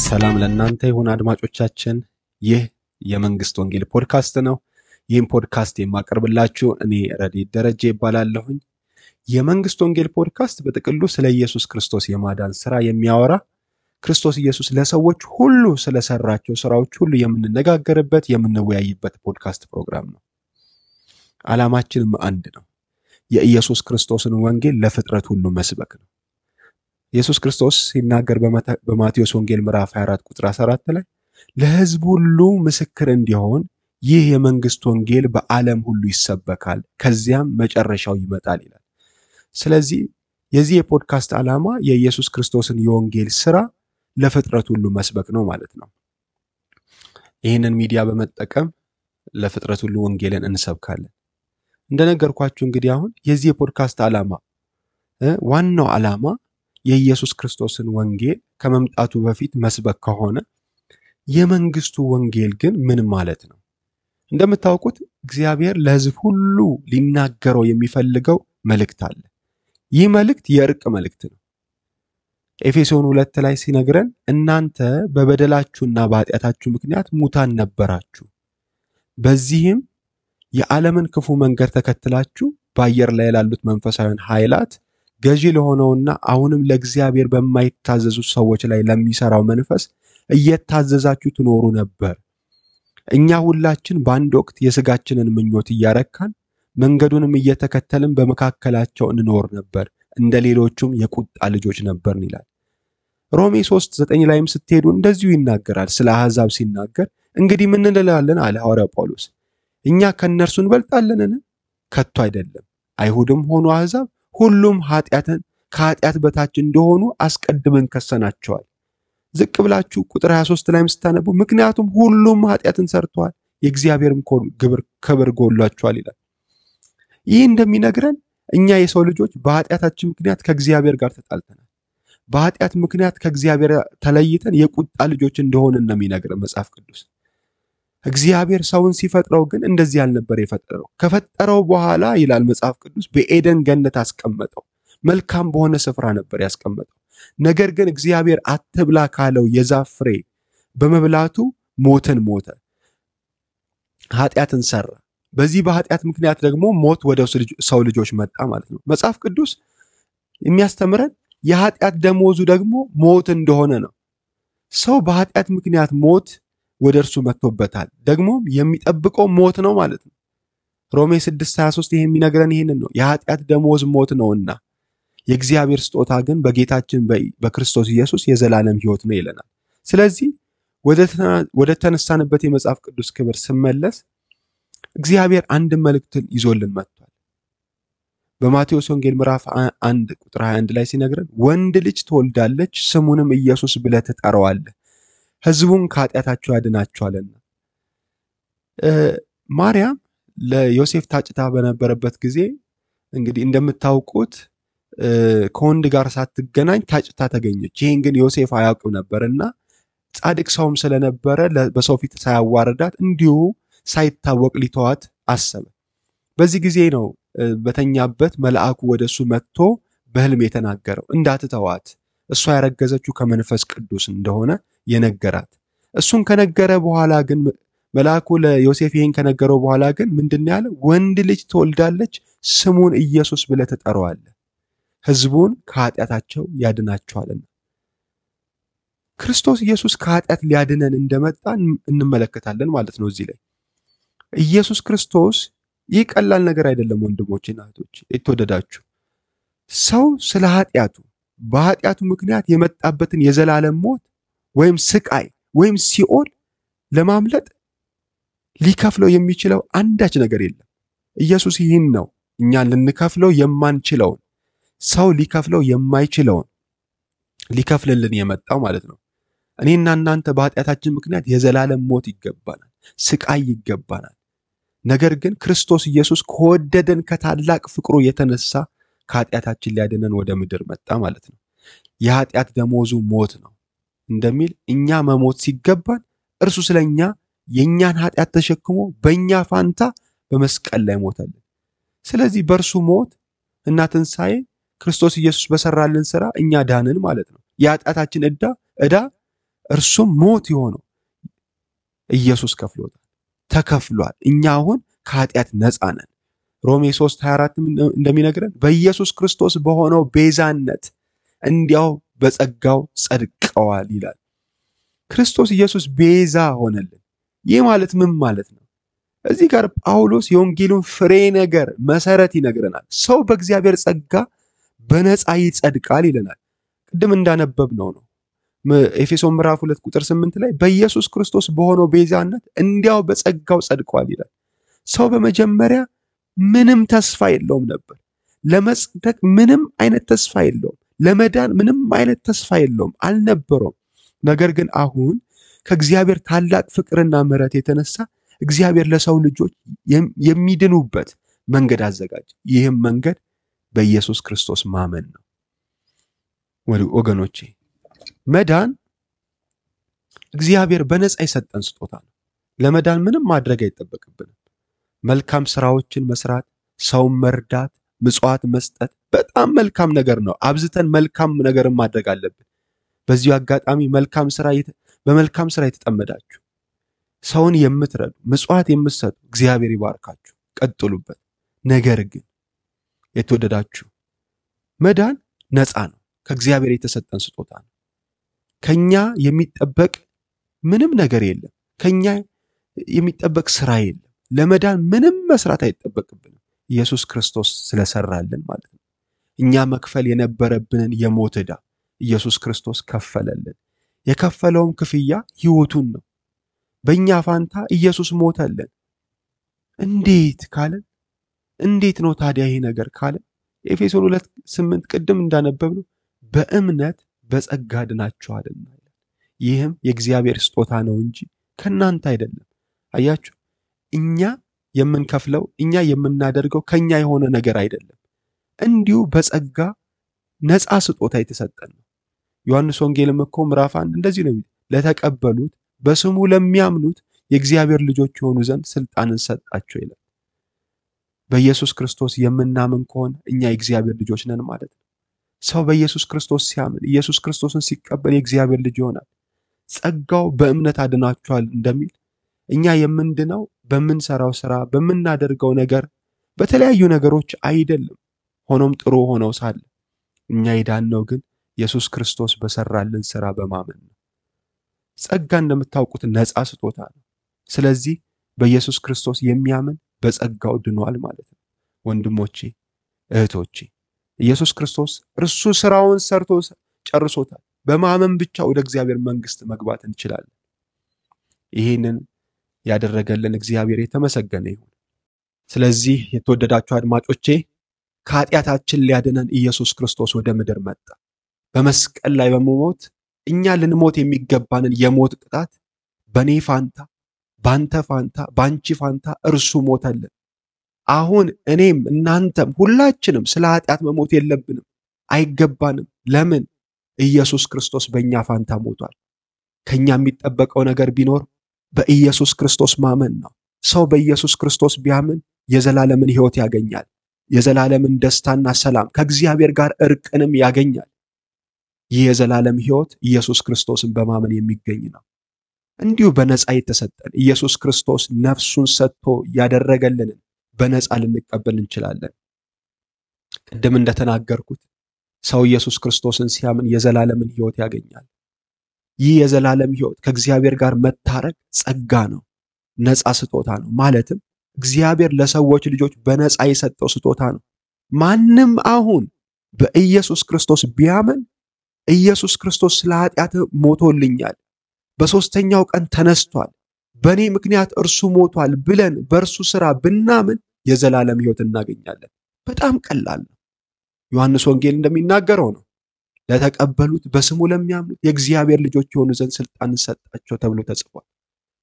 ሰላም ለእናንተ ይሁን አድማጮቻችን። ይህ የመንግስት ወንጌል ፖድካስት ነው። ይህን ፖድካስት የማቀርብላችሁ እኔ ረዲት ደረጀ ይባላለሁኝ። የመንግስት ወንጌል ፖድካስት በጥቅሉ ስለ ኢየሱስ ክርስቶስ የማዳን ስራ የሚያወራ ክርስቶስ ኢየሱስ ለሰዎች ሁሉ ስለሰራቸው ስራዎች ሁሉ የምንነጋገርበት የምንወያይበት ፖድካስት ፕሮግራም ነው። ዓላማችንም አንድ ነው። የኢየሱስ ክርስቶስን ወንጌል ለፍጥረት ሁሉ መስበክ ነው። ኢየሱስ ክርስቶስ ሲናገር በማቴዎስ ወንጌል ምዕራፍ 24 ቁጥር 14 ላይ ለሕዝብ ሁሉ ምስክር እንዲሆን ይህ የመንግስት ወንጌል በዓለም ሁሉ ይሰበካል፣ ከዚያም መጨረሻው ይመጣል ይላል። ስለዚህ የዚህ የፖድካስት ዓላማ የኢየሱስ ክርስቶስን የወንጌል ስራ ለፍጥረት ሁሉ መስበክ ነው ማለት ነው። ይህንን ሚዲያ በመጠቀም ለፍጥረት ሁሉ ወንጌልን እንሰብካለን። እንደነገርኳችሁ እንግዲህ አሁን የዚህ የፖድካስት ዓላማ ዋናው ዓላማ የኢየሱስ ክርስቶስን ወንጌል ከመምጣቱ በፊት መስበክ ከሆነ የመንግስቱ ወንጌል ግን ምን ማለት ነው? እንደምታውቁት እግዚአብሔር ለሕዝብ ሁሉ ሊናገረው የሚፈልገው መልእክት አለ። ይህ መልእክት የእርቅ መልእክት ነው። ኤፌሶን 2 ላይ ሲነግረን እናንተ በበደላችሁና በኃጢአታችሁ ምክንያት ሙታን ነበራችሁ፣ በዚህም የዓለምን ክፉ መንገድ ተከትላችሁ በአየር ላይ ላሉት መንፈሳዊያን ኃይላት ገዢ ለሆነውና አሁንም ለእግዚአብሔር በማይታዘዙ ሰዎች ላይ ለሚሰራው መንፈስ እየታዘዛችሁ ትኖሩ ነበር። እኛ ሁላችን በአንድ ወቅት የሥጋችንን ምኞት እያረካን መንገዱንም እየተከተልን በመካከላቸው እንኖር ነበር፣ እንደ ሌሎቹም የቁጣ ልጆች ነበርን ይላል። ሮሜ 3:9 ላይም ስትሄዱ እንደዚሁ ይናገራል። ስለ አሕዛብ ሲናገር እንግዲህ ምን እንላለን አለ ሐዋርያው ጳውሎስ። እኛ ከእነርሱ እንበልጣለንን? ከቶ አይደለም። አይሁድም ሆኑ አሕዛብ ሁሉም ከኃጢአት በታች እንደሆኑ አስቀድመን ከሰናቸዋል። ዝቅ ብላችሁ ቁጥር 23 ላይም ስታነቡ ምክንያቱም ሁሉም ኃጢአትን ሰርተዋል፣ የእግዚአብሔርም ክብር ጎድሏቸዋል ይላል። ይህ እንደሚነግረን እኛ የሰው ልጆች በኃጢአታችን ምክንያት ከእግዚአብሔር ጋር ተጣልተናል። በኃጢአት ምክንያት ከእግዚአብሔር ተለይተን የቁጣ ልጆች እንደሆንን ነው የሚነግረን መጽሐፍ ቅዱስ። እግዚአብሔር ሰውን ሲፈጥረው ግን እንደዚህ ያልነበር የፈጠረው። ከፈጠረው በኋላ ይላል መጽሐፍ ቅዱስ በኤደን ገነት አስቀመጠው። መልካም በሆነ ስፍራ ነበር ያስቀመጠው። ነገር ግን እግዚአብሔር አትብላ ካለው የዛፍ ፍሬ በመብላቱ ሞትን ሞተ፣ ኃጢአትን ሰራ። በዚህ በኃጢአት ምክንያት ደግሞ ሞት ወደ ሰው ልጆች መጣ ማለት ነው። መጽሐፍ ቅዱስ የሚያስተምረን የኃጢአት ደሞዙ ደግሞ ሞት እንደሆነ ነው። ሰው በኃጢአት ምክንያት ሞት ወደ እርሱ መጥቶበታል፣ ደግሞ የሚጠብቀው ሞት ነው ማለት ነው። ሮሜ 6:23 ይሄ የሚነግረን ይሄንን ነው። የኃጢአት ደሞዝ ሞት ነውና የእግዚአብሔር ስጦታ ግን በጌታችን በክርስቶስ ኢየሱስ የዘላለም ሕይወት ነው ይለናል። ስለዚህ ወደ ተነሳንበት የመጽሐፍ ቅዱስ ክብር ስመለስ እግዚአብሔር አንድ መልእክትን ይዞልን መጥቷል። በማቴዎስ ወንጌል ምዕራፍ 1 ቁጥር 21 ላይ ሲነግረን ወንድ ልጅ ትወልዳለች፣ ስሙንም ኢየሱስ ብለህ ትጠራዋለህ፣ ሕዝቡን ከኃጢአታቸው ያድናቸዋልና። ማርያም ለዮሴፍ ታጭታ በነበረበት ጊዜ እንግዲህ እንደምታውቁት ከወንድ ጋር ሳትገናኝ ታጭታ ተገኘች። ይሄን ግን ዮሴፍ አያውቅም ነበርና ጻድቅ ሰውም ስለነበረ በሰው ፊት ሳያዋርዳት እንዲሁ ሳይታወቅ ሊተዋት አሰበ። በዚህ ጊዜ ነው በተኛበት መልአኩ ወደሱ መጥቶ በሕልም የተናገረው እንዳትተዋት፣ እሷ ያረገዘችው ከመንፈስ ቅዱስ እንደሆነ የነገራት። እሱን ከነገረ በኋላ ግን መልአኩ ለዮሴፍ ይሄን ከነገረው በኋላ ግን ምንድን ያለ? ወንድ ልጅ ትወልዳለች፣ ስሙን ኢየሱስ ብለህ ትጠራዋለህ፣ ሕዝቡን ከኃጢአታቸው ያድናቸዋልና። ክርስቶስ ኢየሱስ ከኃጢአት ሊያድነን እንደመጣ እንመለከታለን ማለት ነው። እዚህ ላይ ኢየሱስ ክርስቶስ ይህ ቀላል ነገር አይደለም ወንድሞችና እህቶች የተወደዳችሁ። ሰው ስለ ኃጢአቱ በኃጢአቱ ምክንያት የመጣበትን የዘላለም ሞት ወይም ስቃይ ወይም ሲኦል ለማምለጥ ሊከፍለው የሚችለው አንዳች ነገር የለም። ኢየሱስ ይህን ነው እኛን ልንከፍለው የማንችለውን፣ ሰው ሊከፍለው የማይችለውን ሊከፍልልን የመጣው ማለት ነው። እኔና እናንተ በኃጢአታችን ምክንያት የዘላለም ሞት ይገባናል፣ ስቃይ ይገባናል። ነገር ግን ክርስቶስ ኢየሱስ ከወደደን ከታላቅ ፍቅሩ የተነሳ ከኃጢአታችን ሊያድነን ወደ ምድር መጣ ማለት ነው። የኃጢአት ደሞዙ ሞት ነው እንደሚል እኛ መሞት ሲገባን እርሱ ስለኛ የኛን ኃጢአት ተሸክሞ በእኛ ፋንታ በመስቀል ላይ ሞተልን። ስለዚህ በእርሱ ሞት እና ትንሣኤ ክርስቶስ ኢየሱስ በሰራልን ሥራ እኛ ዳንን ማለት ነው። የኃጢአታችን ዕዳ እርሱም ሞት የሆነው ኢየሱስ ከፍሎታል፣ ተከፍሏል። እኛ አሁን ከኃጢአት ነፃ ነን። ሮሜ 3:24 እንደሚነግረን በኢየሱስ ክርስቶስ በሆነው ቤዛነት እንዲያው በጸጋው ጸድቀዋል ይላል። ክርስቶስ ኢየሱስ ቤዛ ሆነልን። ይህ ማለት ምን ማለት ነው? እዚህ ጋር ጳውሎስ የወንጌሉን ፍሬ ነገር መሰረት ይነግረናል። ሰው በእግዚአብሔር ጸጋ በነፃ ይጸድቃል ይለናል። ቅድም እንዳነበብነው ነው። ኤፌሶን ምዕራፍ 2 ቁጥር 8 ላይ በኢየሱስ ክርስቶስ በሆነው ቤዛነት እንዲያው በጸጋው ጸድቋል ይላል። ሰው በመጀመሪያ ምንም ተስፋ የለውም ነበር። ለመጽደቅ ምንም አይነት ተስፋ የለውም። ለመዳን ምንም አይነት ተስፋ የለውም፣ አልነበረውም። ነገር ግን አሁን ከእግዚአብሔር ታላቅ ፍቅርና ምሕረት የተነሳ እግዚአብሔር ለሰው ልጆች የሚድኑበት መንገድ አዘጋጀ። ይህም መንገድ በኢየሱስ ክርስቶስ ማመን ነው። ወገኖቼ መዳን እግዚአብሔር በነፃ የሰጠን ስጦታ ነው። ለመዳን ምንም ማድረግ አይጠበቅብንም። መልካም ስራዎችን መስራት፣ ሰውን መርዳት፣ ምጽዋት መስጠት በጣም መልካም ነገር ነው። አብዝተን መልካም ነገርን ማድረግ አለብን። በዚሁ አጋጣሚ በመልካም ስራ የተጠመዳችሁ ሰውን የምትረዱ ምጽዋት የምትሰጡ እግዚአብሔር ይባርካችሁ፣ ቀጥሉበት። ነገር ግን የተወደዳችሁ መዳን ነፃ ነው። ከእግዚአብሔር የተሰጠን ስጦታ ነው። ከኛ የሚጠበቅ ምንም ነገር የለም። ከኛ የሚጠበቅ ስራ የለም። ለመዳን ምንም መስራት አይጠበቅብንም። ኢየሱስ ክርስቶስ ስለሰራልን ማለት ነው። እኛ መክፈል የነበረብንን የሞት ዕዳ ኢየሱስ ክርስቶስ ከፈለልን። የከፈለውም ክፍያ ሕይወቱን ነው። በእኛ ፋንታ ኢየሱስ ሞተልን። እንዴት ነው ታዲያ ይሄ ነገር ካለን ኤፌሶን 2:8 ቅድም እንዳነበብነው በእምነት በጸጋ ድናችኋልና ይህም የእግዚአብሔር ስጦታ ነው እንጂ ከናንተ አይደለም። አያችሁ፣ እኛ የምንከፍለው እኛ የምናደርገው ከኛ የሆነ ነገር አይደለም። እንዲሁ በጸጋ ነፃ ስጦታ የተሰጠን ነው። ዮሐንስ ወንጌልም እኮ ምዕራፍ 1 እንደዚህ ነው፣ ለተቀበሉት በስሙ ለሚያምኑት የእግዚአብሔር ልጆች የሆኑ ዘንድ ስልጣንን ሰጣቸው ይላል። በኢየሱስ ክርስቶስ የምናምን ከሆነ እኛ የእግዚአብሔር ልጆች ነን ማለት ነው። ሰው በኢየሱስ ክርስቶስ ሲያምን ኢየሱስ ክርስቶስን ሲቀበል የእግዚአብሔር ልጅ ይሆናል። ጸጋው በእምነት አድናችኋል እንደሚል እኛ የምንድነው በምንሰራው ስራ፣ በምናደርገው ነገር፣ በተለያዩ ነገሮች አይደለም። ሆኖም ጥሩ ሆነው ሳለ እኛ የዳነው ግን ኢየሱስ ክርስቶስ በሰራልን ስራ በማመን ነው። ጸጋ እንደምታውቁት ነፃ ስጦታ ነው። ስለዚህ በኢየሱስ ክርስቶስ የሚያምን በጸጋው ድኗል ማለት ነው። ወንድሞቼ እህቶቼ፣ ኢየሱስ ክርስቶስ እርሱ ስራውን ሰርቶ ጨርሶታል። በማመን ብቻ ወደ እግዚአብሔር መንግስት መግባት እንችላለን። ይህንን ያደረገልን እግዚአብሔር የተመሰገነ ይሁን። ስለዚህ የተወደዳችሁ አድማጮቼ ከኃጢአታችን ሊያድነን ኢየሱስ ክርስቶስ ወደ ምድር መጣ። በመስቀል ላይ በመሞት እኛ ልንሞት የሚገባንን የሞት ቅጣት በኔ ፋንታ፣ ባንተ ፋንታ፣ ባንቺ ፋንታ እርሱ ሞተልን። አሁን እኔም እናንተም ሁላችንም ስለ ኃጢአት መሞት የለብንም፣ አይገባንም። ለምን? ኢየሱስ ክርስቶስ በእኛ ፋንታ ሞቷል። ከኛ የሚጠበቀው ነገር ቢኖር በኢየሱስ ክርስቶስ ማመን ነው። ሰው በኢየሱስ ክርስቶስ ቢያምን የዘላለምን ሕይወት ያገኛል። የዘላለምን ደስታና ሰላም ከእግዚአብሔር ጋር እርቅንም ያገኛል። ይህ የዘላለም ሕይወት ኢየሱስ ክርስቶስን በማመን የሚገኝ ነው። እንዲሁ በነፃ የተሰጠን ኢየሱስ ክርስቶስ ነፍሱን ሰጥቶ ያደረገልንን በነፃ ልንቀበል እንችላለን። ቅድም እንደተናገርኩት ሰው ኢየሱስ ክርስቶስን ሲያምን የዘላለምን ሕይወት ያገኛል። ይህ የዘላለም ሕይወት ከእግዚአብሔር ጋር መታረቅ ጸጋ ነው፣ ነፃ ስጦታ ነው። ማለትም እግዚአብሔር ለሰዎች ልጆች በነፃ የሰጠው ስጦታ ነው። ማንም አሁን በኢየሱስ ክርስቶስ ቢያምን ኢየሱስ ክርስቶስ ስለ ኃጢአት ሞቶልኛል፣ በሦስተኛው ቀን ተነስቷል፣ በእኔ ምክንያት እርሱ ሞቷል ብለን በእርሱ ሥራ ብናምን የዘላለም ሕይወት እናገኛለን። በጣም ቀላል ነው። ዮሐንስ ወንጌል እንደሚናገረው ነው፣ ለተቀበሉት በስሙ ለሚያምኑት የእግዚአብሔር ልጆች የሆኑ ዘንድ ስልጣን ሰጣቸው ተብሎ ተጽፏል።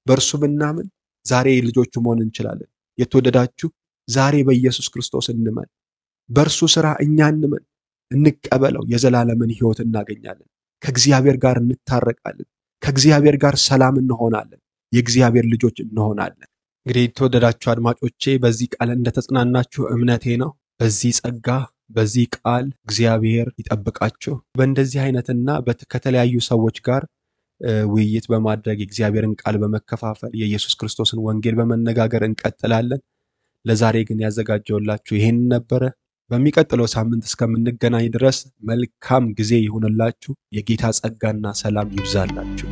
በእርሱ ብናምን ዛሬ ልጆቹ መሆን እንችላለን። የተወደዳችሁ ዛሬ በኢየሱስ ክርስቶስ እንመን፣ በእርሱ ሥራ እኛ እንመን፣ እንቀበለው። የዘላለምን ሕይወት እናገኛለን። ከእግዚአብሔር ጋር እንታረቃለን። ከእግዚአብሔር ጋር ሰላም እንሆናለን። የእግዚአብሔር ልጆች እንሆናለን። እንግዲህ የተወደዳችሁ አድማጮቼ በዚህ ቃል እንደተጽናናችሁ እምነቴ ነው። በዚህ ጸጋ በዚህ ቃል እግዚአብሔር ይጠብቃችሁ። በእንደዚህ አይነትና ከተለያዩ ሰዎች ጋር ውይይት በማድረግ የእግዚአብሔርን ቃል በመከፋፈል የኢየሱስ ክርስቶስን ወንጌል በመነጋገር እንቀጥላለን። ለዛሬ ግን ያዘጋጀውላችሁ ይሄን ነበረ። በሚቀጥለው ሳምንት እስከምንገናኝ ድረስ መልካም ጊዜ ይሁንላችሁ። የጌታ ጸጋና ሰላም ይብዛላችሁ።